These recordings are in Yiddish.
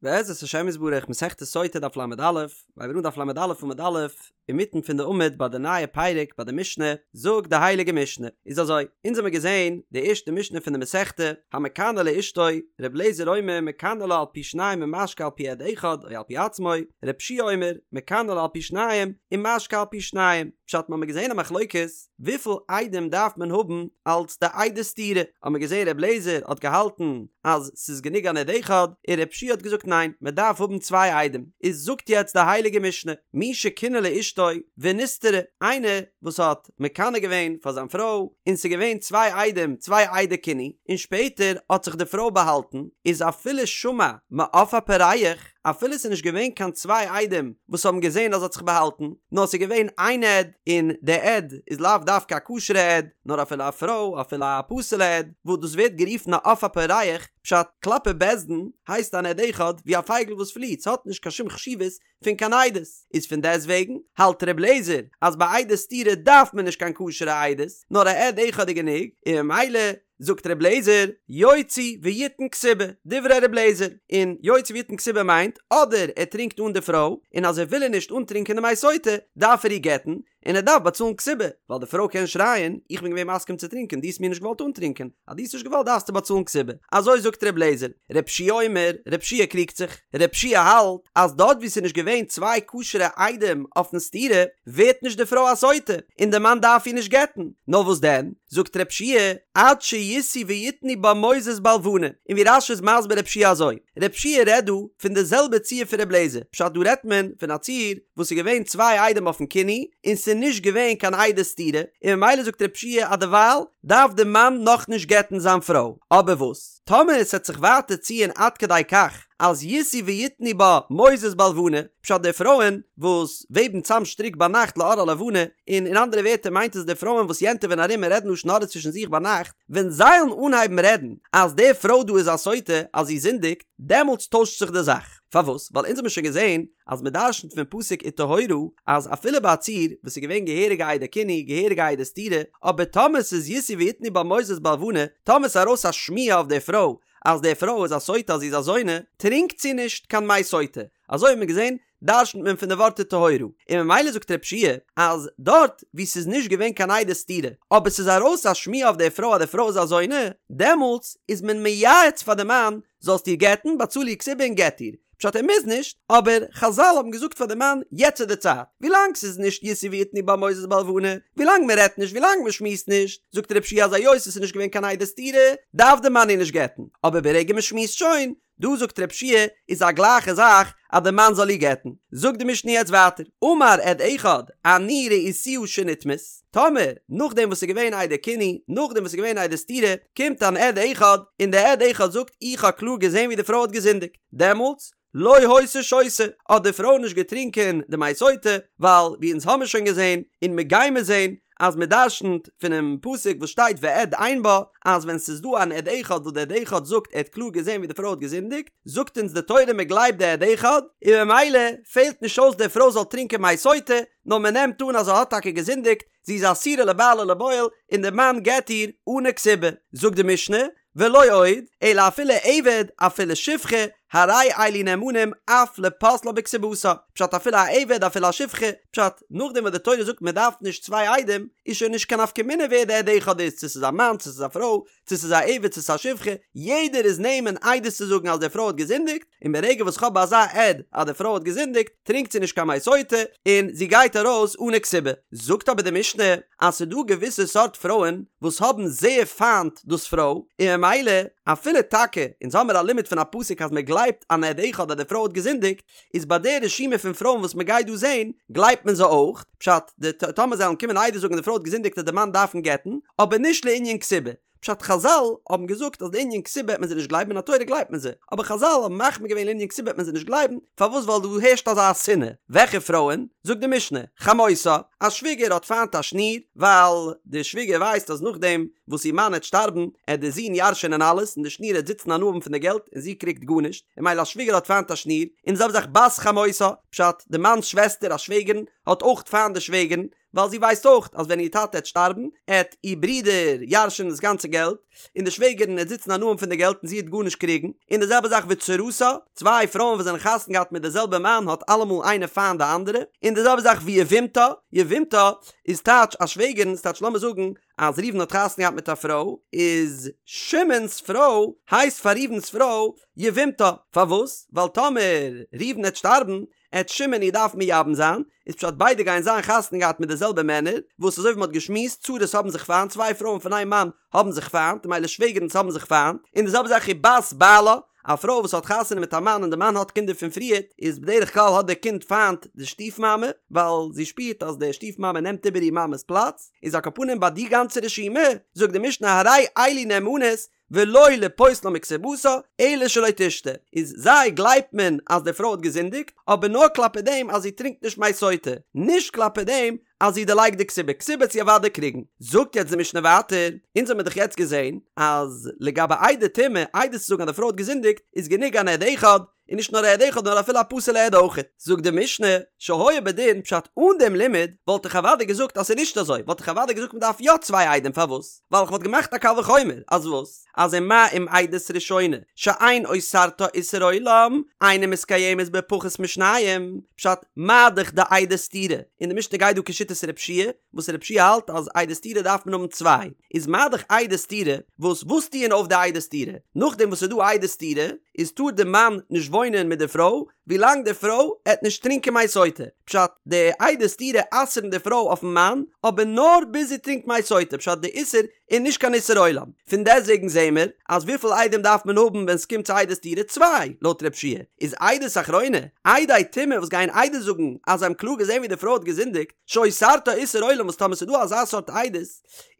בעזרת השם יתברך מסכת סוטה דף ל"א, מ'הייבט אן דף ל"א עמוד א', אינמיטן פון די עמוד ביי די נייע פרק ביי די משנה, זאגט די הייליגע משנה, איז אזוי, אונז האמיר געזען די ערשטע משנה פון די מסכתא, המקנא לאשתו, ר' אליעזר אומר מקנא לה על פי שניים ומשקה על פי עד אחד או על פי עצמו, ר' יהושע אומר מקנא לה על פי שניים ומשקה על פי שניים, פשט מ'האמיר געזען א מחלוקת, וויפיל עדים דארף מען האבן אלס די עדי סתירה? האט מען געזען ר' לעזער האט געהאלטן אז ס'איז גענוג אן עד אחד, און ר' יהושע האט געזאגט ניין, מען דארף האבן צוויי עדים. איז זאגט יעצט די הייליגע משנה, מי שקינא לאשתו ונסתרה, איינער וואס האט מקנא געווען פאר זיין פרוי, און ס'איז געווען צוויי עדים, צוויי עדי קינוי, און שפעטער האט זיך די פרוי באהאלטן, איז אפילו שמע מעוף הפורח, אפילו ס'איז נישט געווען קיין צוויי עדים וואס האבן געזען אז זי האט זיך באהאלטן, נאר ס'איז געווען איין עד, און די עד איז לאו דווקא א כשר'ע עד, נאר אפילו א פרוי, אפילו א פסול'ע עד, וואס דאס ווערט גערופן א עוף הפורח, פשט, כלפי בית דין הייסט אן עד אחד ווי א פייגל וואס פליעט, ס'האט נישט קיין שום חשיבות פון קיין עדות, איז פון דעסט וועגן האלט ר' לעזער אז ביי עדי סתירה דארף מען נישט קיין כשר'ע עדות, נאר א עד אחד איז גענוג, און ממילא זאגט ר' לעזער, יוציא ויתן כתובה, דברי ר' לעזער, און יוציא ויתן כתובה מיינט, אדער ער טרינקט אן די פרוי, און אז ער וויל איר נישט אנטרינקען די מי סוטה, דארף ער איר גט'ן, און ער דארף באצאלן כתובה, ווייל די פרוי קען שרייען, איך בין געווען מסכים צו טרינקען, דו האסט מיר נישט געוואלט אנטרינקען, אז דו האסט נישט געוואלט דארפסטו באצאלן כתובה. אזוי זאגט ר' לעזער. ר' יהושע אומר, ר' יהושע קריגט זיך. ר' יהושע האלט, אז דארט וואו ס'איז נישט געווען צוויי כשר'ע עדים אויפן סתירה, ווערט נישט די פרוי א סוטה, און די מאן דארף איר נישט גט'ן. נאר וואס דען? זאגט ר' יהושע, עד שישאו ויתנו בה מוזות בלבנה, און ווי רש"י איז מסביר ר' יהושע אזוי, ר' יהושע רעדט דא פון די זעלבע ציור פון ר' לעזער, פשט דא רעדט מען פון א ציור וואס איז געווען צוויי עדים אויפן קינוי און ס'איז נישט געווען קיין עדי סתירה, און ממילא זאגט ר' יהושע אז דערווייל דארף די מאן נאכנישט גט'ן זיין פרוי, אבער וואס טאמער עס וועט זיך ווייטער ציען עד כדי כך אז ישאו ויתנו בה מוזות בלבנה, פשט די פרויען וואס וועבן צאם שטריק ביינאכט לאור הלבנה, און אין אנדערע ווערטער מיינט עס די פרויען וואס יענטעווען ארום און רעדן לשון הרע צווישן זיך ביינאכט, ווען זיי וועלן אנהייבן רעדן אז די פרוי דא איז א סוטה, אז זי זינדיגט, דעמאלטס טוישט זיך די זאך. פארוואס? ווייל אונז האבן שוין געזען אז מען דרשנ'ט פון פסוק וטהורה אז אפילו ביי א ציור וואס איז געווען געהעריגע עדי קינוי, געהעריגע עדי סתירה, אבער טאמער ס'איז ישאו ויתנו בה מוזות בלבנה, טאמער ס'איז ארויס א שמועה אויף די פרוי אז די פרוי איז א סוטה אז זי איז א זונה, טרינקט זי נישט קיין מי סוטה. אזוי האט מען געזען דרשנ'ט מען פון די ווארט וטהורה, און ממילא זאגט ר' יהושע אז דארט וואו ס'איז נישט געווען קיין עדי סתירה, אבער ס'איז ארויס א שמועה אויף די פרוי אז די פרוי איז א זונה, דעמאלטס איז מען מייעץ פאר די מאן, זאלסט איר גט'ן, באצאל איר כתובה און גט איר. פשט ער מוז נישט, אבער חזל האבן געזאגט פאר די מאן, יעצט איז די צייט, ווילאנג ס'איז נישט ישאו ויתנו בה מוזות בלבנה, ווילאנג מ'רעדט נישט, ווילאנג מ'שמועסט נישט, זאגט ר' יהושע אז היות עס איז נישט געווען קיין עדי סתירה, דארף די מאן איר נישט גט'ן, אבער ברגע מ'שמועסט שוין, דא זאגט ר' יהושע איז א גלייכע זאך אז די מאן זאל איר גט'ן. זאגט די משנה יעצט ווייטער, אמר עד אחד אני ראיתיה שנטמאת, טאמער נאכדעם וואס ס'איז געווען עדי קינוי, נאכדעם וואס ס'איז געווען עדי סתירה, קומט אן עד אחד און דער עד אחד זאגט איך האב קלאר געזען ווי די פרוי האט געזינדיגט, דעמאלטס לא היתה שותה, האט די פרוי נישט געטרינקען די מי סוטה, ווייל ווי אונז האמיר שוין געזען און מ'גיימיר זען אז מען דרשנ'ט פונעם פסוק וואס שטייט ועד אין בה, אז ווען ס'איז דא אן עד אחד וואס דער עד אחד זאגט ער האט קלאר געזען ווי די פרוי האט געזינדיגט, זאגט אונז די תורה מען גלייבט די עד אחד, און ממילא פעלט נישט אויס די פרוי זאל טרינקען מי סוטה, נאר מען נעמט אן אז זי האט טאקע געזינדיגט, זי איז אסורה לבעל ולבועל, און די מאן גט איר אנע כתובה. זאגט די משנה, ולא עוד, אלא אפילו עבד, אפילו שפחה, הרי אלו נאמנים אף לפוסלה בכתובתה, פשט אפילו א עבד אפילו א שפחה, פשט, נאכדעם וואס די תורה זאגט מען דארף נישט צוויי עדים, איז שוין נישט קיין נפקא מינה ווער די עד אחד איז, צו ס'איז א מאן צו ס'איז א פרוי, צו ס'איז א עבד צו ס'איז א שפחה, יעדער איז נאמן עדות צו זאגן אז די פרוי האט געזינדיגט, און ברגע וואס כ'האב אזא עד אז די פרוי האט געזינדיגט, טרינקט זי נישט קיין מי סוטה, און זי גייט ארויס אנע כתובה. זאגט אבער די משנה, אז ס'איז דא געוויסע סארט פרויען וואס האבן זייער פיינט דאס פרוי, און ממילא אפילו טאקע אונז האמיר א לימוד פון א פסוק אז מען גלייבט אן עד אחד אז די פרוי האט געזינדיגט, איז ביי די רשימה פון פרויען וואס מען גייט דא זעהן, גלייבט מען זיי אויך, פשט, די טאמער זיי וועלן קומען עדות זאגן די פרוי האט געזינדיגט וועט די מאן דארפן גט'ן, אבער נישט לענין כתובה. פשט חזל האבן געזאגט אז לענין כתובה וועט מען זיי נישט גלייבן מן התורה גלייבט מען זיי, אבער חזל האבן מחמיר געווען לענין כתובה וועט מען זיי נישט גלייבן, פארוואס ווייל דא הערשט אזא שנאה, וועלכע פרויען? זאגט די משנה, חמותה, א שוויגער האט פיינט א שניר, ווייל די שוויגער ווייסט אז נאכדעם וואס איר מאן העט שטארבן עט די זון ירש'ענען אלעס און די שניר העט זיצן הנאה האבן פון די געלט און זי קריגט גארנישט, און ממילא א שוויגער האט פיינט א שניר, און די זעלבע זאך בת חמותה, פשט, די מאנ'ס שוועסטער א שוועגערן האט אויך פיינט די שוועגערן, ווייל זי ווייסט אויך אז ווען איר טאטע עט שטארבן עט איר ברודער ירש'ענען דאס גאנצע געלט, און די שוועגערין עט זיצן הנאה האבן פון די געלט און זי עט גארנישט קריגן, און די זעלבע זאך וצרתה, צוויי פרויען וואס זענען חתונה געהאט מיט די זעלבע מאן האט אלעמאל איינע פיינט די אנדערע, און די זעלבע זאך ויבמתה, יבמתה איז טייטש א שוועגערין, ס'טייטש לאמיר זאגן אז ראובן האט חתונה געהאט מיט א פרוי, איז שמעון'ס פרוי הייסט פאר ראובן'ס פרוי יבמתה, פארוואס? ווייל טאמער ראובן עט שטארבן עט שמעון איר דארפן מייבם זיין, איז פשט ביידע גייען זיין חתונה געהאט מיט די זעלבע מענער, וואס אזוי ווי מ'האט געשמועסט, צרות האבן זיך פיינט, צוויי פרויען פון איין מאן האבן זיך פיינט, ממילא שוועגערינס האבן זיך פיינט, און די זעלבע זאך ובת בעלה, א פרוי וואס האט חתונה מיט א מאן און די מאן האט קינדער פון פריערט, איז בדרך כלל האט די קינד פיינט די שטיף מאמע, ווייל זי שפירט אז די שטיף מאמע נעמט איבער איר מאמע'ס פלאץ, איז על כל פנים ביי די גאנצע רשימה, זאגט די משנה הרי אלו נאמנות ולא לפוסלה מכתובתה, אלא שלא תשתה, איז זיי גלייבט מען אז די פרוי האט געזינדיגט, אבער נאר כלפי דעם אז זי טרינקט נישט מי סוטה, נישט כלפי דעם אז זי דערלייגט די כתובה, כתובה עט זי אוודאי קריגן. זאגט יעצט די משנה ווייטער, אונז האמיר דאך יעצט געזען אז לגבי עדי טומאה, עדות צו זאגן אז די פרוי האט געזינדיגט, איז גענוג אן עד אחד, און נישט נאר א עד אחד נאר אפילו א פסול'ע עד אויכעט. זאגט די משנה, שהיה בדין פשט אן דעם לימוד וואלט איך אוודאי געזאגט אז ס'איז נישט אזוי, וואלט איך אוודאי געזאגט מ'דארף יא צוויי עדים פארוואס? ווייל איך וואלט געמאכט א קל וחומר אז וואס? אז ומה אם עדות ראשונה שאין אוסרתה איסור עולם אינה מתקיימת בפחות משניים, פשט מה דאך די עדי סתירה, און די משנה גייט דא כשיטת רב שיע, וואס רב שיע האלט אז עדי סתירה דארף מען האבן צוויי, איז מה דאך עדי סתירה, וואס וואס טוען אויף די עדי סתירה? נאכדעם וואס ס'איז דא עדי סתירה, איז טאר די מאן נישט וואוינען מיט די פרוי ווילאנג די פרוי עט נישט טרינקען מי סוטה, פשט, די עדי סתירה אסר'ן די פרוי אויפן מאן, אבער נאר ביז זי טרינקט מי סוטה, פשט די איסור איז נישט קיין איסור עולם, פון דעסטוועגן זעהן מיר אז וויפיל עדים דארף מען האבן ווען ס'קומט צו עדי סתירה? צוויי, לויט רב שיע איז עדות אחרונה, עדי טומאה וואס גייען עדות זאגן אז זיי האבן קלאר געזעהן ווי די פרוי האט געזינדיגט, שאוסרתה איסור עולם וואס טאמער ס'איז דא אזא סארט עדות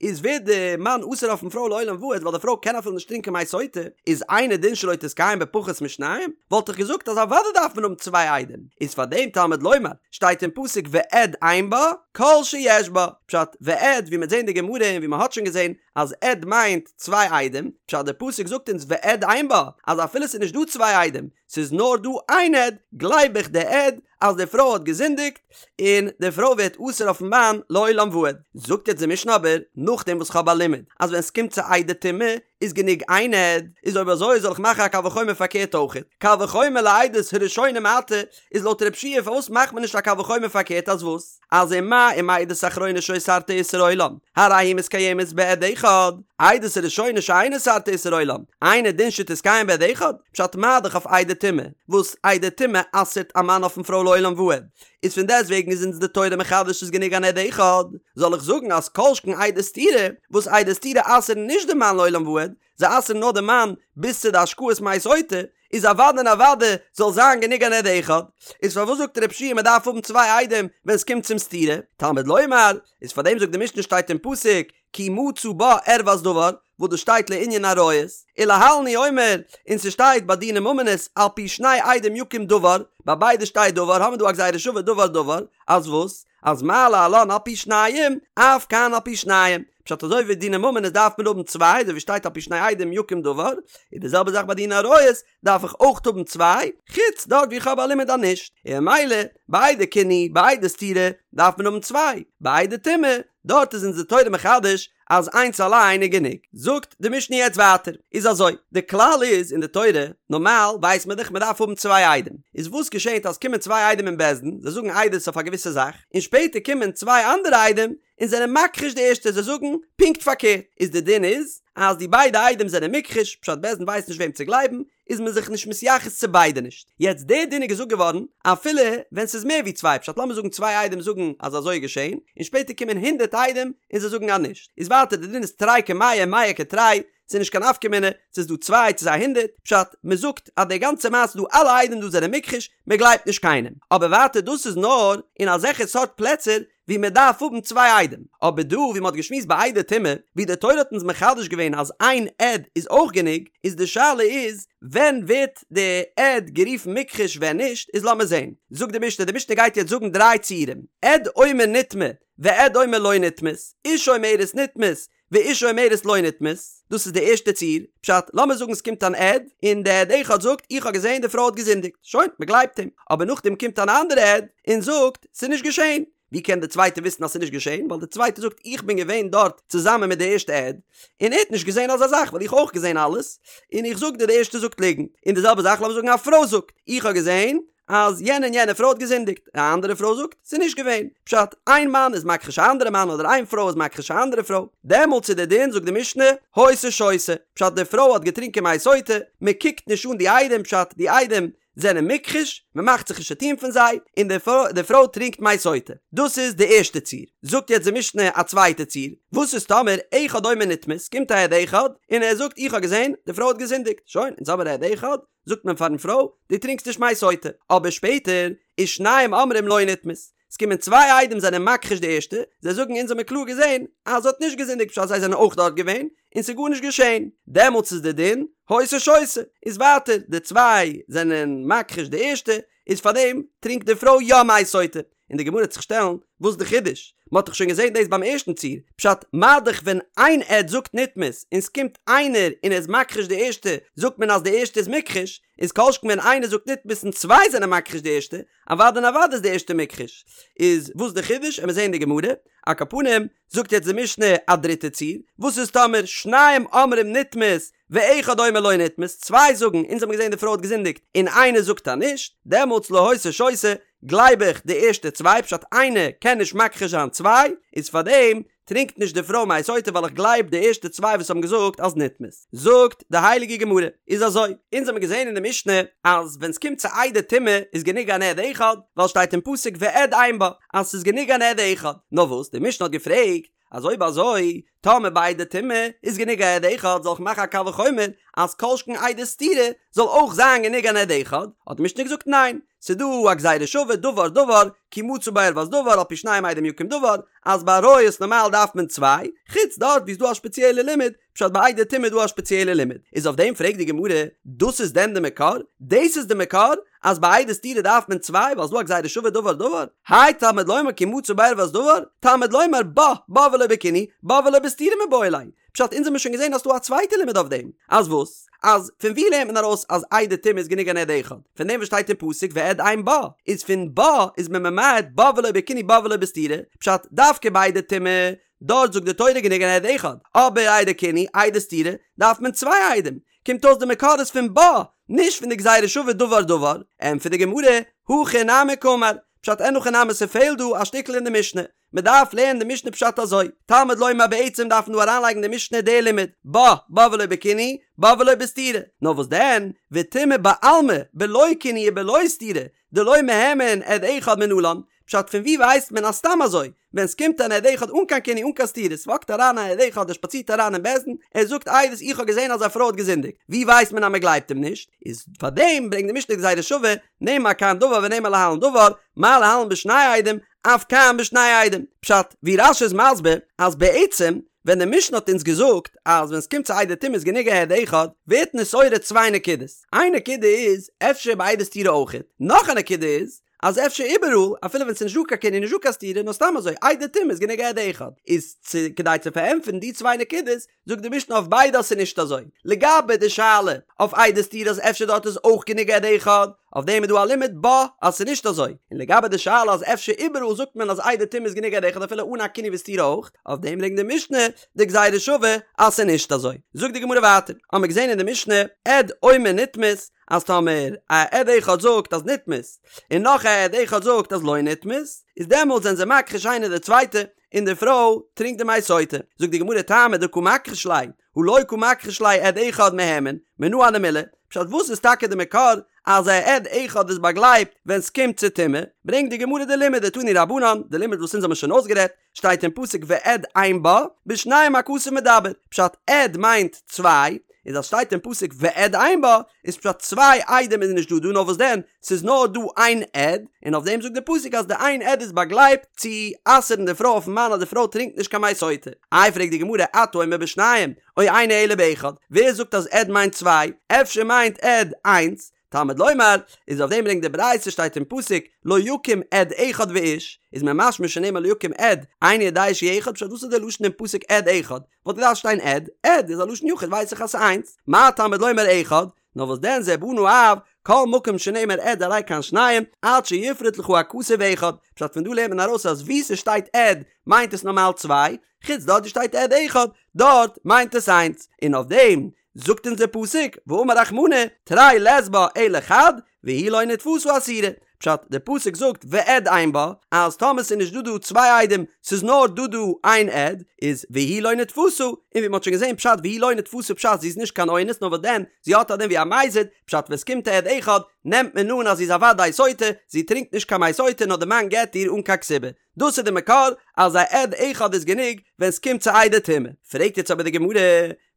איז ווערט די מאן אסור אויפן פרוי לעולם ועד ווייל די פרוי קען אפילו נישט טרינקען מי סוטה, איז אינו דין שלא תתקיים בפחות משניים? וואלט איך געזאגט אז אוודאי דארף מען האבן צוויי עדים, איז פאר דעם תלמוד לומר שטייט אין פסוק ועד אין בה כל שיש בה, פשט ועד ווי מ'עט זעהן די גמרא און ווי מ'האט שוין געזעהן אז עד מיינט צוויי עדים, פשט די פסוק זאגט אונז ועד אין בה אז אפילו ס'איז נישט דא צוויי עדים ס'איז נאר דא איין עד, גלייב איך די עד אז די פרוי האט געזינדיגט, און די פרוי ווערט אסור אויפן מאן לעולם ועד. זאגט יעצט די משנה אבער, נאכדעם וואס כ'האב א לימוד אז ווען ס'קומט צו עדי טומאה איז גענוג איין עד, איז אויב אזוי זאל איך מאכן א קל וחומר פארקערט אויכעט, קל וחומר לעדות הראשונה מעתה, איז לויט רב שיע פארוואס מאכט מען נישט א קל וחומר פארקערט אז וואס? אז ומה אם עדות אחרונה שאוסרתה איסור עולם, הרי היא מתקיימת בעד אחד, עדות הראשונה שאין אוסרתה איסור עולם, אינו דין שתתקיים בעד אחד, פשט מה דאך אויף עדי טומאה, וואס עדי טומאה אסר'ט א מאן אויפן פרוי לעולם ועד, איז פון דעסט וועגן איז אונז די תורה מחדש ס'איז גענוג אן עד אחד, זאל איך זאגן אז כל שכן עדי סתירה, וואס עדי סתירה אסר'ן נישט די מאן לעולם ועד, זיי אסר'ן נאר די מאן ביז צו די השקאת מי סוטה, איז אוודאי און אוודאי זאל זיין גענוג אן עד אחד, איז פארוואס זאגט רב שיע מען דארף האבן צוויי עדים ווען ס'קומט צום סתירה? תלמוד לומר, איז פארדעם זאגט די משנה שטייט אין פסוק כי מצא בה ערות דבר, וואס דאס שטייט לענין עריות, ולהלן הוא אומר, און ס'שטייט ביי דיני ממונות על פי שני עדים יקום דבר, ביי ביידע שטייט דבר, האמיר דא א גזירה שווה דבר דבר, אז וואס? אז מה להלן על פי שניים, אף כאן על פי שניים. פשט אזוי ווי דיני ממונות דארף מען האבן צוויי, אזוי ווי שטייט על פי שני עדים יקום דבר, איז די זעלבע זאך ביי דיני עריות, דארף איך אויך האבן צוויי, חוץ דארט ווי איך האב א לימוד אז נישט, און ממילא ביי עדי קינוי, ביי עדי סתירה, דארף מען האבן צוויי, ביי עדי טומאה, דארט איז אונז די תורה מחדש אז איינס אליין איז גענוג. זאגט די משנה יעצט ווייטער, איז אזוי, די כלל איז אין די תורה, נארמאל ווייסט מען דאך מען דארף האבן צוויי עדים, איז וואס געשענט אז קומען צוויי עדים אין בית דין, זיי זאגן עדות אויף א געוויסע זאך, און שפעטער קומען צוויי אנדערע עדים און זענען מכחיש די ערשטע, זיי זאגן פונקט פארקערט, איז די דין איז אז די ביידע עדים זענען מוכחש, פשט בית דין ווייסט נישט וועם צו גלייבן, איז מען זיך נישט מתייחס צו ביידע נישט. יעצט די דין איז געזאגט געווארן אפילו ווען ס'איז מער ווי צוויי פשט לאמיר זאגן צוויי עדים זאגן אז אזוי איז געשען און שפעטער קומען הונדערט עדים און זיי זאגן אז נישט איז ווייטער די דין איז תרי כמאה מאה כתרי ס'איז נישט קיין נפקא מינה צו ס'איז דא צוויי צו ס'איז א הונדערט פשט מ'זאגט אז די גאנצע מעשה דא אלע עדים דא זענען מוכחש מ'גלייבט נישט קיינעם אבער ווייטער דאס איז נאר אין אזעלכע סארט פלעצער ווי מען דארף האבן צוויי עדים, אבער דא ווי מען האט געשמועסט ביי עדי טומאה, ווי די תורה האט אונז מחדש געווען אז איין עד איז אויך גענוג, איז די שאלה איז ווען ווערט די עד גערופן מוכחש ווען נישט, איז לאמיר זען, זאגט די משנה, די משנה גייט יעצט זאגן דריי ציורים, עד אומר נטמאה ועד אומר לא נטמאת, אשה אומרת נטמאת, ואשה אומרת לא נטמאת, דאס איז די ערשטע ציור, פשט, לאמיר זאגן ס'קומט אן עד, און די עד אחד זאגט, איך האב געזען די פרוי האט געזינדיגט, שוין, מ'גלייבט אים, אבער נאכדעם קומט אן אנדערע עד, און זאגט, ס'איז נישט געשען. ווי קען די צווייטע וויסן אז ס'איז נישט געשען, ווייל די צווייטע זאגט איך בין געווען דארט צוזאמען מיט די ערשטע עד, און ער האט נישט געזען אזא זאך ווייל איך האב אויך געזען אלעס, און איך זאג דיר די ערשטע זאגט ליגנט, און די זעלבע זאך לאמיר זאגן א פרוי זאגט איך האב געזען אז יענע און יענע פרוי האט געזינדיגט, א אנדערע פרוי זאגט ס'איז נישט געווען, פשט, איין מאן איז מכחיש א אנדערע מאן אדער איין פרוי איז מכחיש א אנדערע פרוי, דעמאלטס איז די דין זאגט די משנה, היתה שותה, פשט די פרוי האט געטרינקען מי סוטה, מען קוקט נישט אן די עדים פשט די עדים זענען מוכחש, מען מאכט זיך נישט צוטון פון זיי, און די פרוי טרינקט מי סוטה. דאס איז די ערשטע ציור. זאגט יעצט די משנה א צווייטע ציור, וואס איז טאמער אחד אומר נטמאת, קומט א עד אחד און ער זאגט איך האב געזען די פרוי האט געזינדיגט, שוין, אונז האמיר א עד אחד, זאגט מען פארן פרוי, דו טרינקסט נישט מי סוטה. אבער שפעטער, ושניים אומרים לא נטמאת, עס קומען צוויי עדים זענען מכחיש די ערשטע, זיי זאגן אונז האמיר קלאר געזען אז זי האט נישט געזינדיגט פשט זיי זענען אויך דארט געווען און ס'איז גארנישט געשען, דעמאלטס איז די דין היתה שותה, איז ווייטער די צוויי זענען מכחיש די ערשטע, איז פארדעם טרינקט די פרוי יא מי סוטה, און די גמרא וועט זיך שטעלן וואס איז די חידוש? מען האט דאך שוין געזען דאס ביים ערשטן ציור, פשט מה דאך ווען איין עד זאגט נטמאת און ס'קומט איינער און ער איז מכחיש די ערשטע זאגט מען אז די ערשטע איז מוכחש, איז כל שכן ווען איינער זאגט נטמאת און צוויי זענען מכחיש די ערשטע, אוודאי און אוודאי איז די ערשטע מוכחש. איז וואס די חידוש? עמיר זעהן די גמרא. על כל פנים, זאגט יעצט די משנה א דריטע ציור, וואס איז טאמער שניים אומרים נטמאת ואחד אומר לא נטמאת, צוויי זאגן אונז האבן געזעהן די פרוי האט געזינדיגט און איינער זאגט אז נישט, דעמאלטס לא היתה שותה, גלייב איך די ערשטע צוויי פשט איינער קען נישט מכחיש זיין צוויי, איז פארדעם טרינקט נישט די פרוי מי סוטה ווייל איך גלייב די ערשטע צוויי וואס האבן געזאגט אז נטמאת. זאגט די הייליגע גמרא, איז אזוי, אונז האבן געזען אין די משנה אז ווען ס'קומט צו עדי טומאה איז גענוג אן עד אחד, ווייל שטייט אין פסוק ועד אין בה אז ס'איז גענוג אן עד אחד, נאר וואס די משנה האט געפרעגט אז אויב אזוי טאמער ביי עדי טומאה איז גענוג א עד אחד זאל איך מאכן א קל וחומר אז כל שכן עדי סתירה זאל אויך זיין גענוג אן עד אחד, האט די משנה געזאגט ניין, ס'איז דא א גזירה שווה דבר דבר כי מצא בה ערות דבר על פי שניים עדים יקום דבר, אז ביי עריות נארמאל דארף מען צוויי, חוץ דארט ווי איז דא א שפעציעלע לימוד, פשט ביי עדי טומאה איז דא א שפעציעלע לימוד, איז אויף דעם פרעגט די גמרא, דאס איז דען די מקור? דאס איז די מקור אז ביי עדי סתירה דארף מען צוויי ווייל ס'איז דא א גזירה שווה דבר דבר? האי תלמוד לומר כי מצא בה ערות דבר, תלמוד לומר בה, בה ולא בקינוי, בה ולא בסתירה מיבעי ליה, פשט אונז האמיר שוין געזען אז ס'דא א צווייטע לימוד אויף דעם, אז וואס? אז פון ווי לערנט מען ארויס אז עדי טומאה איז גענוג אן עד אחד? פון דעם וואס שטייט אין פסוק ועד אין בה, איז פון בה איז מען ממעט בה ולא בקינוי בה ולא בסתירה, פשט דווקא ביי עדי טומאה, דארט זאגט די תורה גענוג אן עד אחד, אבער עדי קינוי, עדי סתירה, דארף מען צוויי עדים, קומט אויס די מקור איז פון בה, נישט פון די גזירה שווה דבר דבר, ענטפערט די גמרא, הכי נמי קאמר, פשט אין הכי נמי ס'פעלט דא א שטיקל אין די משנה, מען דארף לערנען די משנה פשט אזוי, תלמוד לומר בעצם דארף מען דא אריינלייגן די משנה די לימוד, בה, בה ולא בקינוי, בה ולא בסתירה, נאר וואס דען, וטומאה בעלמא, בלא קינוי ובלא סתירה, דלא מהימן עד אחד מנלן, פשט פון ווי ווייסט מען אז סתם אזוי, ווען סקומט אן עד אחד אן קיין קינוי אן קיין סתירה, סוואקט אריין א עד אחד ער שפאצירט אריין אין בית דין, ער זאגט עדות איך האב געזען אז א פרוי האט געזינדיגט, ווי ווייסט מען אז מען גלייבט אים נישט? איז פארדעם ברענגט די משנה גזירה שווה, נאמר כאן דבר ונאמר להלן דבר, מה להלן בשני עדים, אף כאן בשני עדים. פשט, ווי רש"י איז מסביר, אז בעצם ווען די משנה האט אונז געזאגט אז ווען סקומט צו עדי טומאה איז גענוג א עד אחד, ווערט נתעורר צוויי נקודות. איין נקודה איז, אפשר ביי עדי סתירה אויכעט. נאך א נקודה איז, אז אפשר איבעראל, אפילו ווען ס'איז נישט דא קיין קינוי נישט דא קיין סתירה, נאר סתם אזוי, עדי טומאה איז גענוג א עד אחד. איז צו כדי צו פארענטפערן די צוויי נקודות, זאגט די משנה אויף ביידע אז ס'איז נישט אזוי. לגבי די שאלה אויף עדי סתירה אז אפשר דארט איז אויך גענוג עד אחד, אויף דעם איז דא א לימוד בה אז ס'איז נישט אזוי. און לגבי די שאלה אז אפשר איבעראל זאגט מען אז עדי טומאה איז גענוג עד אחד אפילו אן א קינוי וסתירה אויך, אויף דעם ברענגט די משנה די גזירה שווה אז ס'איז נישט אזוי. זאגט די גמרא ווייטער, האמיר געזען אין די משנה, עד אומר נטמאת, אז טאמער א עד אחד זאגט אז נטמאת, און נאך א עד אחד זאגט אז לא נטמאת, איז דעמאלטס זענען זיי מכחיש איינער די צווייטע, און די פרוי טרינקט די מי סוטה. זאגט די גמרא טעמא דקא מכחיש ליה, הא לא קא מכחיש ליה עד אחד מהימן, מנא הני מילי, פשט וואס איז טאקע די מקור אז א עד אחד איז באגלייבט ווען סקומט צו טומאה, ברענגט די גמרא די לימוד דתנו רבנן, די לימוד וואס אונז האבן שוין אויסגערעדט, שטייט אין פסוק ועד אין בה, בשניים הכתוב מדבר, פשט עד מיינט צוויי, איז אז שטייט אין פסוק ועד אין בה, איז פשט צוויי עדים איז נישט דא דא נאר וואס דען ס'איז נאר דא איין עד, און אויף דעם זאגט די פסוק אז די איין עד איז באגלייבט צו אסר'ן די פרוי אויפן מאן אז די פרוי טרינקט נישט קיין מי סוטה. איי פרעגט די גמרא אתה אומר בשניים או אינו אלא באחד, ווער זאגט אז עד מיינט צוויי, אפשר מיינט עד איינס, תלמוד לומר, איז אויף דעם ברענגט די ברייתא שטייט אין פסוק לא יקום עד אחד ואיש, איז מיר משמע שנאמר לא יקום עד, איני יודע שהוא אחד, פשט וואס איז די לשון אין פסוק עד אחד? וואלט געדארפט שטיין עד, עד איז א לשון יחיד ווייס איך אז ס'איז איינס, מה תלמוד לומר אחד, נאר וואס דען זה בנה אב, כל מקום שנאמר עד הרי כאן שניים, עד שיפרוט לך הכתוב אחד, פשט פון דא לערנט מען ארויס אז וואו ס'שטייט עד מיינט עס נארמאל צוויי, חוץ דארט ווי שטייט עד אחד, דארט מיינט עס איינס, און אויף דעם זאגט אונז דער פסוק, ואמר רחמנא, תרי לית בה אלא חד, והיא לא נתפשה אסורה. פשט, דער פסוק זאגט ועד אין בה, אז טאמער ס'איז נישט דא דא צוויי עדים, ס'איז נאר דא דא איין עד, איז והיא לא נתפשה, און ווי מ'האט שוין געזען פשט והיא לא נתפשה פשט זי איז נישט קיין אונס נאר וואס דען, זי האט א דין ווי א מזיד, פשט ווען ס'קומט א עד אחד, נעמט מען אן אז זי איז א וודאי סוטה, זי טרינקט נישט קיין מי סוטה נאר די מאן גט איר אן קיין כתובה. דאס איז די מקור אז א עד אחד איז גענוג ווען ס'קומט צו עדי טומאה. פרעגט יעצט אבער די גמרא,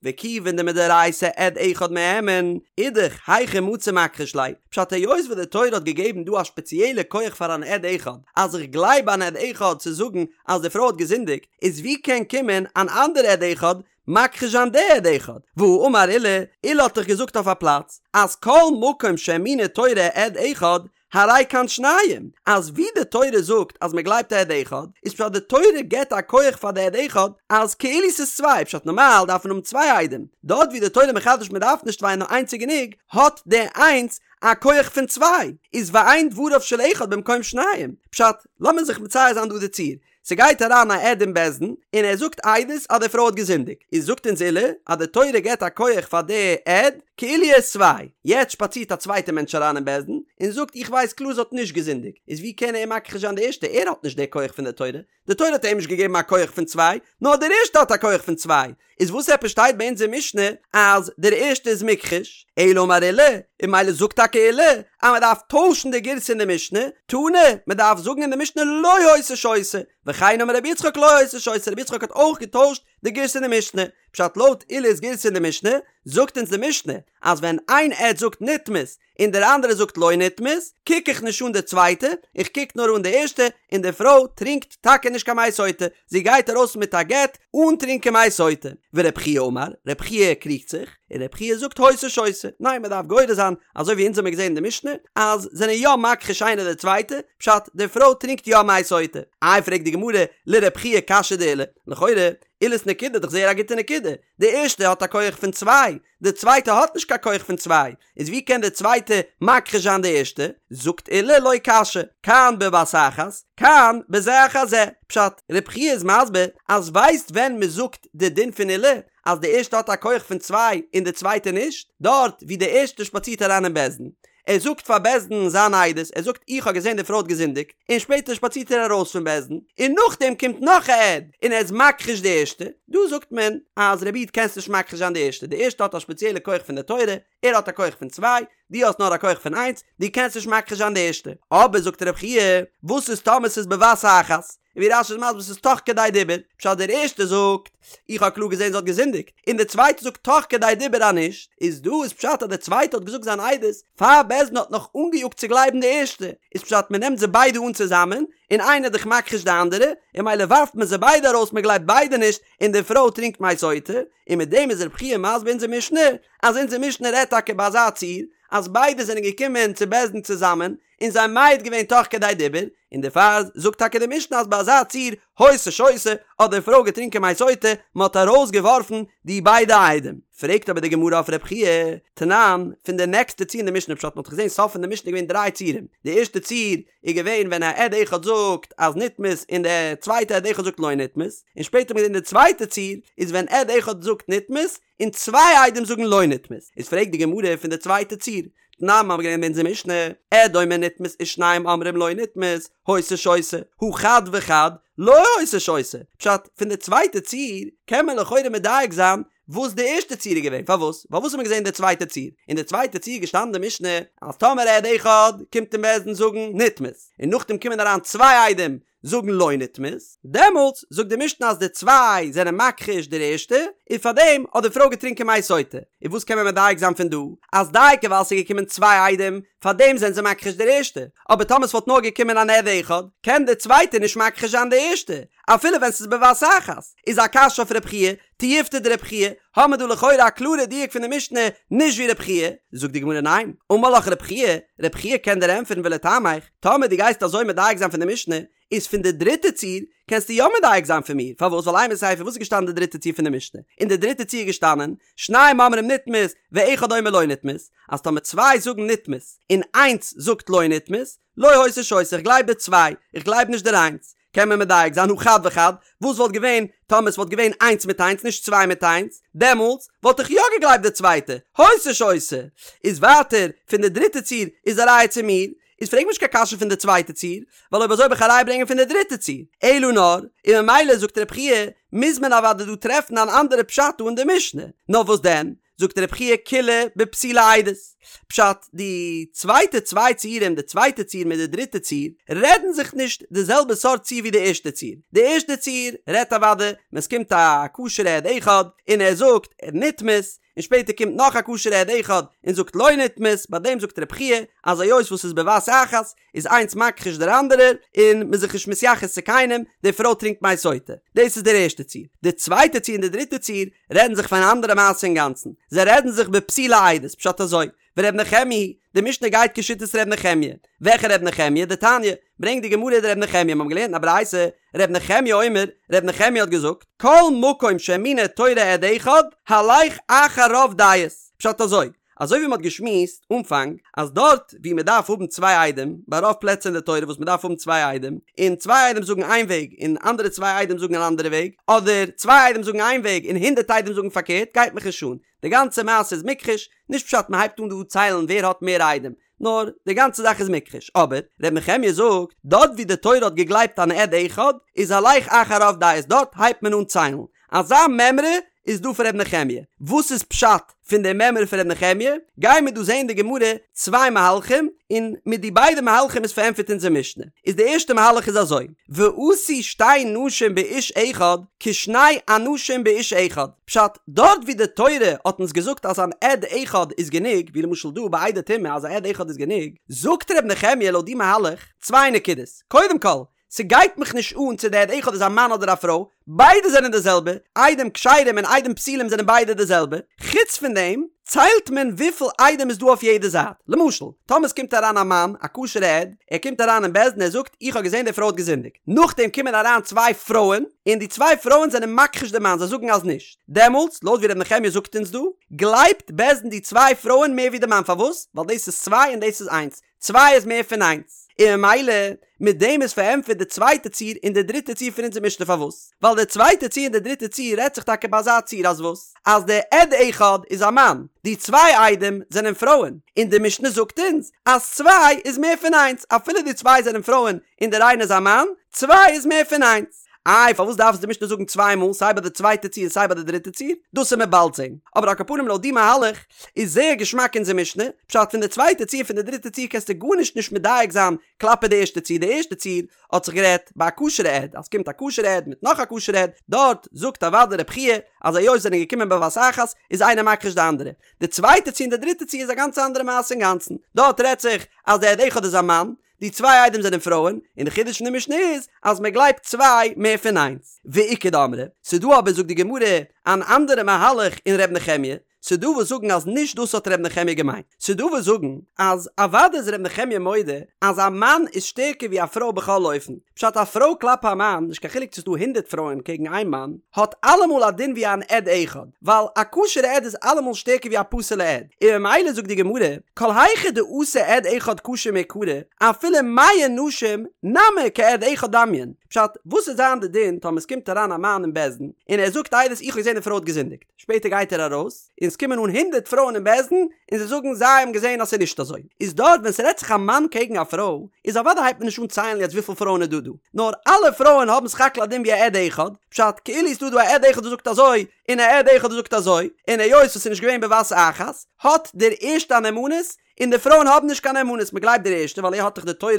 וכיוון דמדאורייתא עד אחד מהימן, אידך היכי מצי מכחיש ליה, פשט היות וואס די תורה האט געגעבן דא א שפעציעלע כח פאר אן עד אחד, אז איך גלייב אן עד אחד צו זאגן אז די פרוי האט געזינדיגט, איז ווי קען קומען אן אנדערע עד אחד מכחיש זיין די עד אחד? והאמר עולא, עולא האט דאך געזאגט אויף א פלאץ אז כל מקום שהאמינה תורה עד אחד, הרי כאן שניים, אז ווי די תורה זאגט אז מען גלייבט א עד אחד, איז פשט די תורה געבט א כח פאר די עד אחד אז כאילו ס'איז צוויי, פשט נארמאל דארף מען האבן צוויי עדים, דארט ווי די תורה מחדש מען דארף נישט צוויי נאר איינס איז גענוג, האט די איינס א כח פון צוויי, איז ואין דבריו של אחד במקום שניים, פשט, לאמיר זיך מצייר זיין דא די ציור, ס'גייט אריין א עד אין בית דין און ער זאגט עדות אז די פרוי האט געזינדיגט, איז זאגט אונז עולא אז די תורה געבט א כח פאר די עד כאילו ער איז צוויי, יעצט שפאצירט א צווייטע מענטש אריין אין בית דין און זאגט איך ווייס קלאר זי האט נישט געזינדיגט, איז ווי קען ער מכחיש זיין די ערשטע, ער האט נישט די כח פון די תורה, די תורה האט אים נישט געגעבן א כח פון צוויי, נאר דער ערשטע האט א כח פון צוויי, איז וואס עפעס שטייט ביי אונז אין משנה אז דער ערשטע איז מוכחש, אלא אמר עולא, און ממילא זאגט טאקע עולא אז מען דארף טוישן די גירסא אין די משנה, תנא, מען דארף זאגן אין די משנה לא היתה שותה, וכן אמר רבי יצחק לא היתה שותה, רבי יצחק האט אויך געטוישט די גירסא אין די משנה, פשט לויט עולא'ס גירסא אין די משנה, זאגט אונז די משנה אז ווען איין עד זאגט נטמאת און דער אנדערער זאגט לא נטמאת, קוק איך נישט אן די צווייטע, איך קוק נאר אן די ערשטע, און די פרוי טרינקט טאקע נישט קיין מי סוטה, זי גייט ארויס מיט א גט אן טרינקען מי סוטה. ורב חייא אמר, רב חייא קריגט זיך, און רב חייא זאגט היתה שותה, ניין מען דארף גורס זיין, אזוי ווי אונז האמיר געזען אין די משנה, אז זענען יא מכחיש איינער די צווייטע, פשט, די פרוי טרינקט יא מי סוטה. איי פרעגט די גמרא, לרב חייא קשיא דעולא, לכאורה, עולא'ס נקודה איז דאך זייער א גוטע נקודה, די ערשטע האט א כח פון צוויי, די צווייטע האט נישט קיין כח פון צוויי, איז ווי קען די צווייטע מכחיש זיין די ערשטע? זאגט עולא לא קשיא, כאן בבת אחת, כאן בזה אחר זה. פשט, רב חייא איז מסביר אז ווייסט ווען מען זאגט די דין פון עולא אז די ערשטע האט א כח פון צוויי און די צווייטע נישט? דארט ווי די ערשטע שפאצירט אריין אין בית דין, ער זאגט פאר בית דין זיין עדות, ער זאגט איך האב געזען די פרוי האט געזינדיגט, און שפעטער שפאצירט ער ארויס פון בית דין, און נאכדעם קומט נאך א עד און ער איז מכחיש די ערשטע, דא זאגט מען אז רבי איד קענסט נישט מכחיש זיין די ערשטע, די ערשטע האט א שפעציעלע כח פון די תורה, ער האט א כח פון צוויי, דו האסט נאר א כח פון איינס, דו קענסט נישט מכחיש זיין די ערשטע. אבער זאגט רב חייא, וואס איז טאמער ס'איז בבת אחת? און ווי רש"י איז מסביר ס'איז תוך כדי דיבור, פשט דער ערשטער זאגט, איך האב קלאר געזען זי האט געזינדיגט, און דער צווייטער זאגט תוך כדי דיבור אז נישט, איז דא איז פשט אז דער צווייטער האט געזאגט זיין עדות פאר בית דין האט נאך אנגעיאגט צו גלייבן די ערשטע, איז פשט מען נעמט זיי ביידע אן צוזאמען, און איינער איז דאך מכחיש די אנדערע, און ממילא ווארפט מען זיי ביידע ארויס מען גלייבט ביידע נישט, און די פרוי טרינקט מי סוטה, און מיט דעם איז רב חייא מסביר אונזער משנה, אז אונזער משנה רעדט טאקע ביי אזא ציור, אז ביידע זענען געקומען צו בית דין צוזאמען, און זיי מעיד געווען תוך כדי דיבור, און דערפאר זאגט טאקע די משנה אז ביי אזא ציור היתה שותה האט די פרוי געטרינקען מי סוטה, מען האט ארויס געווארפן די ביידע עדים. פרעגט אבער די גמרא אויף רב חייא, תנן, פון די נעקסטע ציור אין די משנה פשט מען האט געזען סוף פון די משנה איז געווען דריי ציורים, די ערשטע ציור איז געווען ווען א עד אחד זאגט אז נטמאת און די צווייטע עד אחד זאגט לא נטמאת, און שפעטער האט מען געזען די צווייטע ציור איז ווען עד אחד זאגט נטמאת און צוויי עדים זאגן לא נטמאת, איז פרעגט די גמרא פון די צווייטע ציור, תנן מ'האבן געלערנט אין אונזער משנה, עד אומר נטמאת ושניים אומרים לא נטמאת, היתה שותה, הא חד וחד, לא היתה שותה, פשט, פון די צווייטע ציור קען מען לכאורה מדייק זיין וואס די ערשטע ציור איז געווען, פארוואס? ווייל וואס האט מען געזען אין די צווייטע ציור? אין די צווייטע ציור איז געשטאנען די משנה אז טאמער עד אחד קומט אין בית דין זאגן נטמאת, און נאכדעם קומען אריין צוויי עדים זאגן לא נטמאת, דעמאלטס זאגט די משנה אז די צוויי זענען מכחיש דער ערשטע, און פארדעם האט די פרוי געטרינקען מי סוטה. און וואס קען מען מדייק זיין פון דא? אז דייקא ווייל ס'איז געקומען צוויי עדים, פארדעם זענען זיי מכחיש דער ערשטע, אבער טאמער ס'וואלט נאר געקומען אן עד אחד, קען דער צווייטער נישט מכחיש זיין די ערשטע, אפילו ווען ס'איז בבת אחת. איז א קשיא אויף רב חייא, תיובתא דרבי חייא, האמיר דא לכאורה א קלארע דיוק פון די משנה, נישט ווי רבי חייא, זאגט די גמרא ניין, אמר לך רבי חייא, רבי חייא קען דיר ענטפערן ולטעמיך, טאמער דו גייסט אזוי מדייק זיין פון די משנה, איז פון די דריטע ציור קענסטו יא מדייק זיין פון מיר, פארוואס? ווייל אימא סיפא וואס איז געשטאנען די דריטע ציור פון די משנה? אין די דריטע ציור איז געשטאנען, שניים אומרים נטמאת, ואחד אומר לא נטמאת, אז טאמער צוויי זאגן נטמאת, און איינס זאגט לא נטמאת, לא היתה שותה, איך גלייב די צוויי, איך גלייב נישט דער איינס. קען מען מדייק זיין הא חד וחד, וואס וואלט געווען טאמער ס'וואלט געווען איינס מיט איינס נישט צוויי מיט איינס, דעמאלטס וואלט איך יא געגלייבט די צווייטע, היתה שותה. איז ווייטער פון די דריטע ציור איז א ראיה צו מיר, איז פרעג מיר נישט קיין קשיא פון די צווייטע ציור, ווייל אויב אזוי וועל איך א ראיה ברענגען פון די דריטע ציור. אלא נאר, און ממילא זאגט רבי חייא, מוז מען אוודאי דא טרעפן אן אנדערע פשט דא אין די משנה. נאר וואס דען? זאגט רבי חייא כולה בפסולי עדות. פשט, די צווייטע צוויי ציורים, די צווייטע ציור מיט די דריטע ציור, רעדן זיך נישט די זעלבע סארט ציור ווי די ערשטע ציור. די ערשטע ציור רעדט אוודאי ווען ס'קומט א כשר'ע עד אחד און ער זאגט נטמאת, און שפעטער קומט נאך א כשר'ע עד אחד און זאגט לא נטמאת, ביי דעם זאגט רבי חייא אז היות וואס ס'איז בבת אחת איז איינס מכחיש דער אנדערער און מ'איז זיך נישט מתייחס צו קיינעם, די פרוי טרינקט מי סוטה. דאס איז דער ערשטער ציור. די צווייטע ציור און די דריטע ציור רעדן זיך פון אן אנדערע מעשה אינגאנצן. זיי רעדן זיך בפסולי עדות, פשט אזוי, ור' נחמיה היא, די משנה גייט כשיטת ר' נחמיה. וועלכע ר' נחמיה? דתניא, ברענגט די גמרא דר' נחמיה, מ'האבן געלערנט אין א ברייתא, ר' נחמיה אומר, ר' נחמיה האט געזאגט, כל מקום שהאמינה תורה עד אחד, הלך אחר רוב דעות. פשט אזוי, אזוי ווי מ'האט געשמועסט אנפאנג, אז דארט ווי מ'דארף האבן צוויי עדים, ביי רוב פלעצער אין די תורה וואס מ'דארף האבן צוויי עדים, און צוויי עדים זאגן איין וועג און אנדערע צוויי עדים זאגן אן אנדערע וועג, אדער צוויי עדים זאגן איין וועג און הונדערט עדים זאגן פארקערט, גייט מיך נישט אן. די גאנצע מעשה איז מוכחש, נישט פשט מ'הייבט אן דא ציילן ווער האט מער עדים, נאר די גאנצע זאך איז מוכחש, אבער ר' נחמיה זאגט, דארט ווי די תורה האט געגלייבט אן עד אחד, איז הלך אחר רוב דעות, דארט הייבט מען אן ציילן. אזא מימרא איז דא פון ר' נחמיה. וואס איז פשט פון די מימרא פון ר' נחמיה? גייען מיר דא זעהן אין די גמרא צוויי מהלכים, און מיט די ביידע מהלכים איז פארענטפערט אונזער משנה. איז די ערשטע מהלך איז אזוי, ועשו שתי נשים באיש אחד כשני אנשים באיש אחד, פשט, דארט ווי די תורה האט אונז געזאגט אז אן עד אחד איז גענוג, ווי למשל דא ביי עדי טומאה אז א עד אחד איז גענוג, זאגט ר' נחמיה לויט די מהלך צוויי נקודות, קודם כל, ס'גייט מיך נישט אן צו די עד אחד איז א מאן אדער א פרוי, ביידע זענען די זעלבע, עדים כשרים און עדים פסולים זענען ביידע די זעלבע, חוץ פון דעם ציילט מען וויפיל עדים איז דא אויף יעדע זייט, למשל, טאמער ס'קומט אריין א מאן, א כשר'ע עד, ער קומט אריין אין בית דין ער זאגט איך האב געזען די פרוי האט געזינדיגט, נאכדעם קומען אריין צוויי פרויען, און די צוויי פרויען זענען מכחיש די מאן זיי זאגן אז נישט, דעמאלטס, לויט ווי ר' נחמיה זאגט אונז דא, גלייבט בית דין די צוויי פרויען מער ווי די מאן, פארוואס? ווייל דאס איז צוויי און דאס איז איינס, צוויי איז מער פון איינס, און ממילא מיט דעם איז פארענטפערט די צווייטע ציור און די דריטע ציור פון אונזער משנה פארוואס? ווייל די צווייטע ציור און די דריטע ציור רעדט זיך טאקע ביי אזא ציור אז וואס? אז די עד אחד איז א מאן, די צוויי עדים זענען פרויען, און די משנה זאגט אונז אז צוויי איז מער פון איינס אפילו די צוויי זענען פרויען און דער איינער איז א מאן, צוויי איז מער פון איינס. איי פארוואס דארף עס די משנה זאגן צוויי מאל סיי ביי די צווייטע ציור און סיי ביי די דריטע ציור? דאס וועט מען באלד זען. אבער על כל פנים לויט די מהלך איז זייער געשמאק אונזער משנה, פשט פון די צווייטע ציור פון די דריטע ציור קענסטו גארנישט נישט מדייק זיין כלפי די ערשטע ציור, די ערשטע ציור האט זיך גערעדט ביי א כשר'ע עד אז ס'קומט א כשר'ע עד מיט נאך א כשר'ע עד, דארט זאגט אוודאי רב חייא אז היות זענען געקומען בבת אחת איז איינער מכחיש די אנדערע. די צווייטע ציור און די דריטע ציור איז א גאנץ אנדערע מעשה אינגאנצן, דארט רעדט זיך אז די עד אחד איז א מאן, די צוויי עדים זענען פרויען, און די חידוש פון די משנה איז אז מען גלייבט צוויי מער פון איינס. ואיכא דאמרי, ס'דא אבער זאגט די גמרא אן אנדערע מהלך אין ר' נחמיה, ס'דא וואס זאגן אז נישט דאס האט ר' נחמיה געמיינט, ס'דא וואס זאגן אז אוודאי איז ר' נחמיה מודה אז א מאן איז שטערקער ווי א פרוי בכל אופן, פשט א פרוי כלפי א מאן, נישט קיין חילוק צו ס'דא הונדערט פרויען קעגן איין מאן, האט אלעמאל א דין ווי אן עד אחד, ווייל א כשר'ע עד איז אלעמאל שטערקער ווי א פסול'ע עד, און ממילא זאגט די גמרא, כל היכא דאתא עד אחד כשר מעיקרא, אפילו מאה נשים נמי כעד אחד דמיין, פשט, וואס וועט זיין די דין טאמער ס'קומט אריין א מאן אין בית דין, און ער זאגט עדות איך האב געזען די פרוי האט געזינדיגט, שפעטער גייט ער ארויס, און ס'קומען אן הונדערט פרויען אין בית דין, און זיי זאגן זיי האבן געזען אז ס'איז נישט אזוי, איז דארט ווען ס'רעדט זיך א מאן קעגן א פרוי, איז אוודאי הייבט מען נישט אן ציילן יעצט וויפיל פרויען איז דא דא, נאר אלע פרויען האבן סך הכל א דין ווי א עד אחד, פשט, כאילו איז דא דא א עד אחד וואס זאגט אזוי, און א עד אחד וואס זאגט אזוי, און היות וואס ס'איז נישט געווען בבת אחת, האט דער ערשטע א נאמנות, און די פרויען האבן נישט קיין נאמנות, מ'גלייבט דער ערשטע ווייל ער האט דאך די תורה,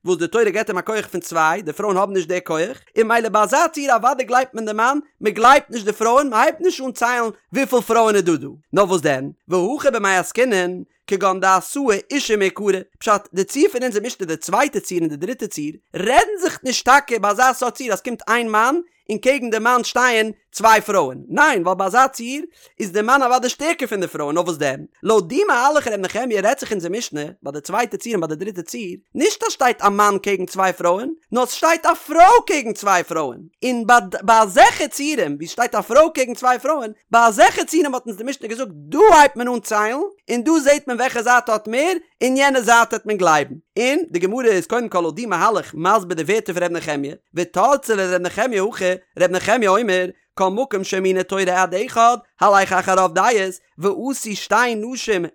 וואס די תורה געבט אים א כח פון צוויי, די פרויען האבן נישט די כח, און ממילא ביי אזא ציור אוודאי גלייבט מען די מאן, מ'גלייבט נישט די פרויען, מ'הייבט נישט אן ציילן וויפיל פרויען איז דא דא. נאר וואס דען, והכא במאי עסקינן, כגון דאתאי אשה מעיקרא, פשט, די ציור פון אונזער משנה די צווייטע ציור און די דריטע ציור, רעדן זיך נישט טאקע ביי אזא סארט ציור אז ס'קומט איין מאן און קעגן די מאן שטייען צוויי פרויען, ניין ווייל ביי אזא ציור איז די מאן אוודאי שטערקער פון די פרויען, נאר וואס דען, לויט די מהלך ר' נחמיה רעדט זיך אונזער משנה ביי די צווייטע ציור און ביי די דריטע ציור, נישט אז שטייט א מאן קעגן צוויי פרויען, נאר ס'שטייט א פרוי קעגן צוויי פרויען, און ביי ביי אזעלכע ציורים ווי ס'שטייט א פרוי קעגן צוויי פרויען, ביי אזעלכע ציורים האט אונז די משנה געזאגט דא הייבט מען אן ציילן, און דא זעט מען וועלכע זייט האט מער, און יענע זייט העט מען גלייבן. און די גמרא איז קודם כל לויט די מהלך מסביר די ווערטער פון ר' נחמיה, ותרצה לר' נחמיה הכי, ר' נחמיה אומר, כל מקום שהאמינה תורה עד אחד, הלך אחר רוב דעות, ועשו שתי נשים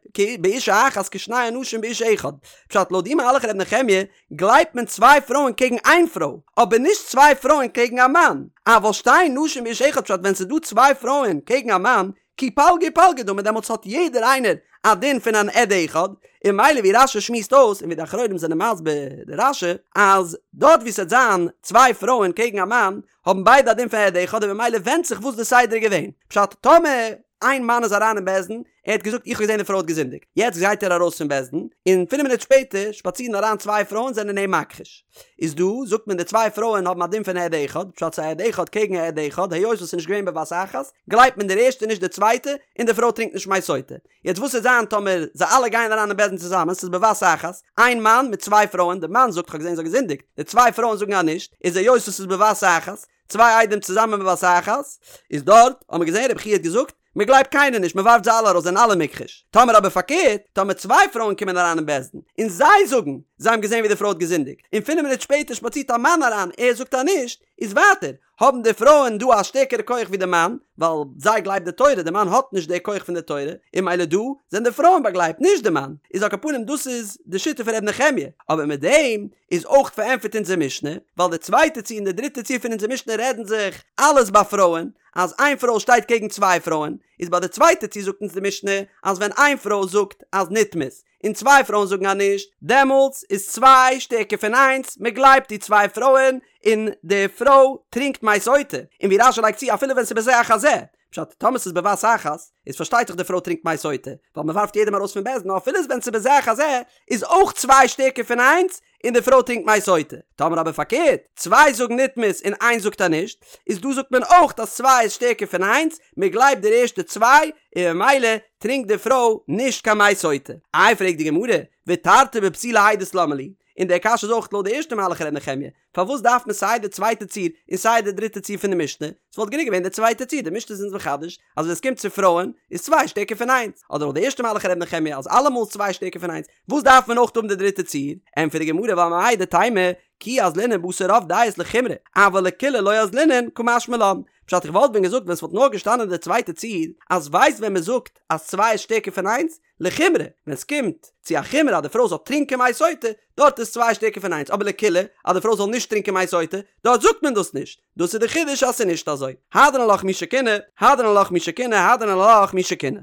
באשה אחת כשני אנשים באיש אחד. פשט, לויט די מהלך ר' נחמיה, גלייבט מען צוויי פרויען קעגן איין פרוי, אבער נישט צוויי פרויען קעגן א מאן. אבל שתי נשים באיש אחד פשט ווען ס'איז דא צוויי פרויען קעגן א מאן, כי פלגא ופלגא דמי דעמאלטס האט יעדער איינער א דין פון אן עד אחד, און ממילא ווי רש"י שמועסט אויס און ווי די אחרונים זענען מסביר די רש"י אז דארט ווי ס'וועט זיין צוויי פרויען קעגן א מאן האבן ביידע א דין פון עד אחד און ממילא ווענדט זיך וואס די סדר איז געווען, פשט טאמער איין מאן איז אריין אין בית דין ער האט געזאגט איך האב געזען די פרוי האט געזינדיגט, יעצט גייט ער ארויס פון בית דין און פינף מינוט שפעטער שפאצירן אריין צוויי פרויען זענען אים מכחיש. איז דא זאגט מען די צוויי פרויען האבן א דין פון עד אחד, פשט ס'איז א עד אחד קעגן א עד אחד, היות וואס ס'איז נישט געווען בבת אחת, גלייבט מען דער ערשטע נישט די צווייטע, און די פרוי טרינקט נישט מי סוטה. יעצט וואס וועט זיין טאמער זיי אלע גייען אריין אין בית דין צוזאמען, ס'איז בבת אחת, איין מאן מיט צוויי פרויען, די מאן זאגט כ'האב געזען זי האט געזינדיגט, די צוויי פרויען זאגן אז נישט, איז היות וואס ס'איז בבת אחת, צוויי עדים צוזאמען בבת אחת, איז דארט האט מען געזען רבי חייא האט געזאגט, מען גלייבט קיינער נישט, מען ווארפט זיי אלע ארויס, זענען אלע מוכחש. טאמער אבער פארקערט, טאמער צוויי פרויען קומען אריין אין בית דין, און זיי זאגן, זיי האבן געזען ווי די פרוי האט געזינדיגט, און פינף מינוט שפעטער שפאצירט א מאן אריין, ער זאגט אז נישט, איז ווייטער, האבן די פרויען דא א שטערקערע כח ווי די מאן, ווייל זיי גלייבט די תורה, די מאן האט נישט די כח פון די תורה, און ממילא דא, זענען די פרויען באגלייבט, נישט די מאן. איז על כל פנים דאס איז די שיטה פון ר' נחמיה, אבער מיט דעם איז אויך פארענטפערט אונזער משנה, ווייל די צווייטע ציור און די דריטע ציור פון אונזער משנה רעדן זיך אלעס ביי פרויען, אז איין פרוי שטייט קעגן צוויי פרויען, איז ביי די צווייטע ציור זאגט אונז די משנה אז ווען איין פרוי זאגט אז נטמאת, און צוויי פרויען זאגן אז נישט, דעמאלטס איז צוויי שטערקער פון איינס, מען גלייבט די צוויי פרויען, און די פרוי טרינקט מי סוטה, און ווי רש"י לייגט צו אפילו ווען ס'איז בזה אחר זה, פשט, טאמער ס'איז בבת אחת, איז פארשטייט זיך די פרוי טרינקט מי סוטה, ווייל מען ווארפט יעדעם ארויס פון בית דין, נאר אפילו ווען ס'איז בזה אחר זה, איז אויך צוויי שטערקער פון איינס, און די פרוי טרינקט מי סוטה. טאמער אבער פארקערט, צוויי זאגן נטמאת און איינס זאגט אז נישט, איז דא זאגט מען אויך אז צוויי איז שטערקער פון איינס, מען גלייבט די ערשטע צוויי, און ממילא טרינקט די פרוי נישט קיין מי סוטה. איי פרעגט די גמרא, ותרתי בפסולי עדות למה לי? און די קשיא איז אויך לויט די ערשטע מהלך ר' נחמיה, פארוואס דארף מען סיי די צווייטע ציור און סיי די דריטע ציור פון די משנה? ס'וואלט גענוג געווען די צווייטע ציור, די משנה איז אונז מחדש אז ווען עס קומט צו פרויען איז צוויי שטערקער פון איינס, אדער לויט די ערשטע מהלך ר' נחמיה אז אלעמאל איז צוויי שטערקער פון איינס, וואס דארף מען אויך האבן די דריטע ציור? ענטפערט די גמרא ווייל מהו דתימא כי אזלינן בתר רוב דעות לחומרא, אבל לקולא לא אזלינן קא משמע לן. פשט איך וואלט ווען געזאגט ווען ס'וואלט נאר געשטאנען די צווייטע ציור אז ווייסט ווען מ'זאגט אז צוויי איז שטערקער פון איינס, לחומרא, ווען ס'קומט צו א חומרא אז די פרוי זאל טרינקען מי סוטה, דארט איז צוויי שטערקער פון איינס, אבער לקולא, אז די פרוי זאל נישט טרינקען מי סוטה, דארט זאגט מען דאס נישט. דאס איז די חידוש אז ס'איז נישט אזוי. הדרן עלך מי שקינא, הדרן עלך מי שקינא, הדרן עלך מי שקינא.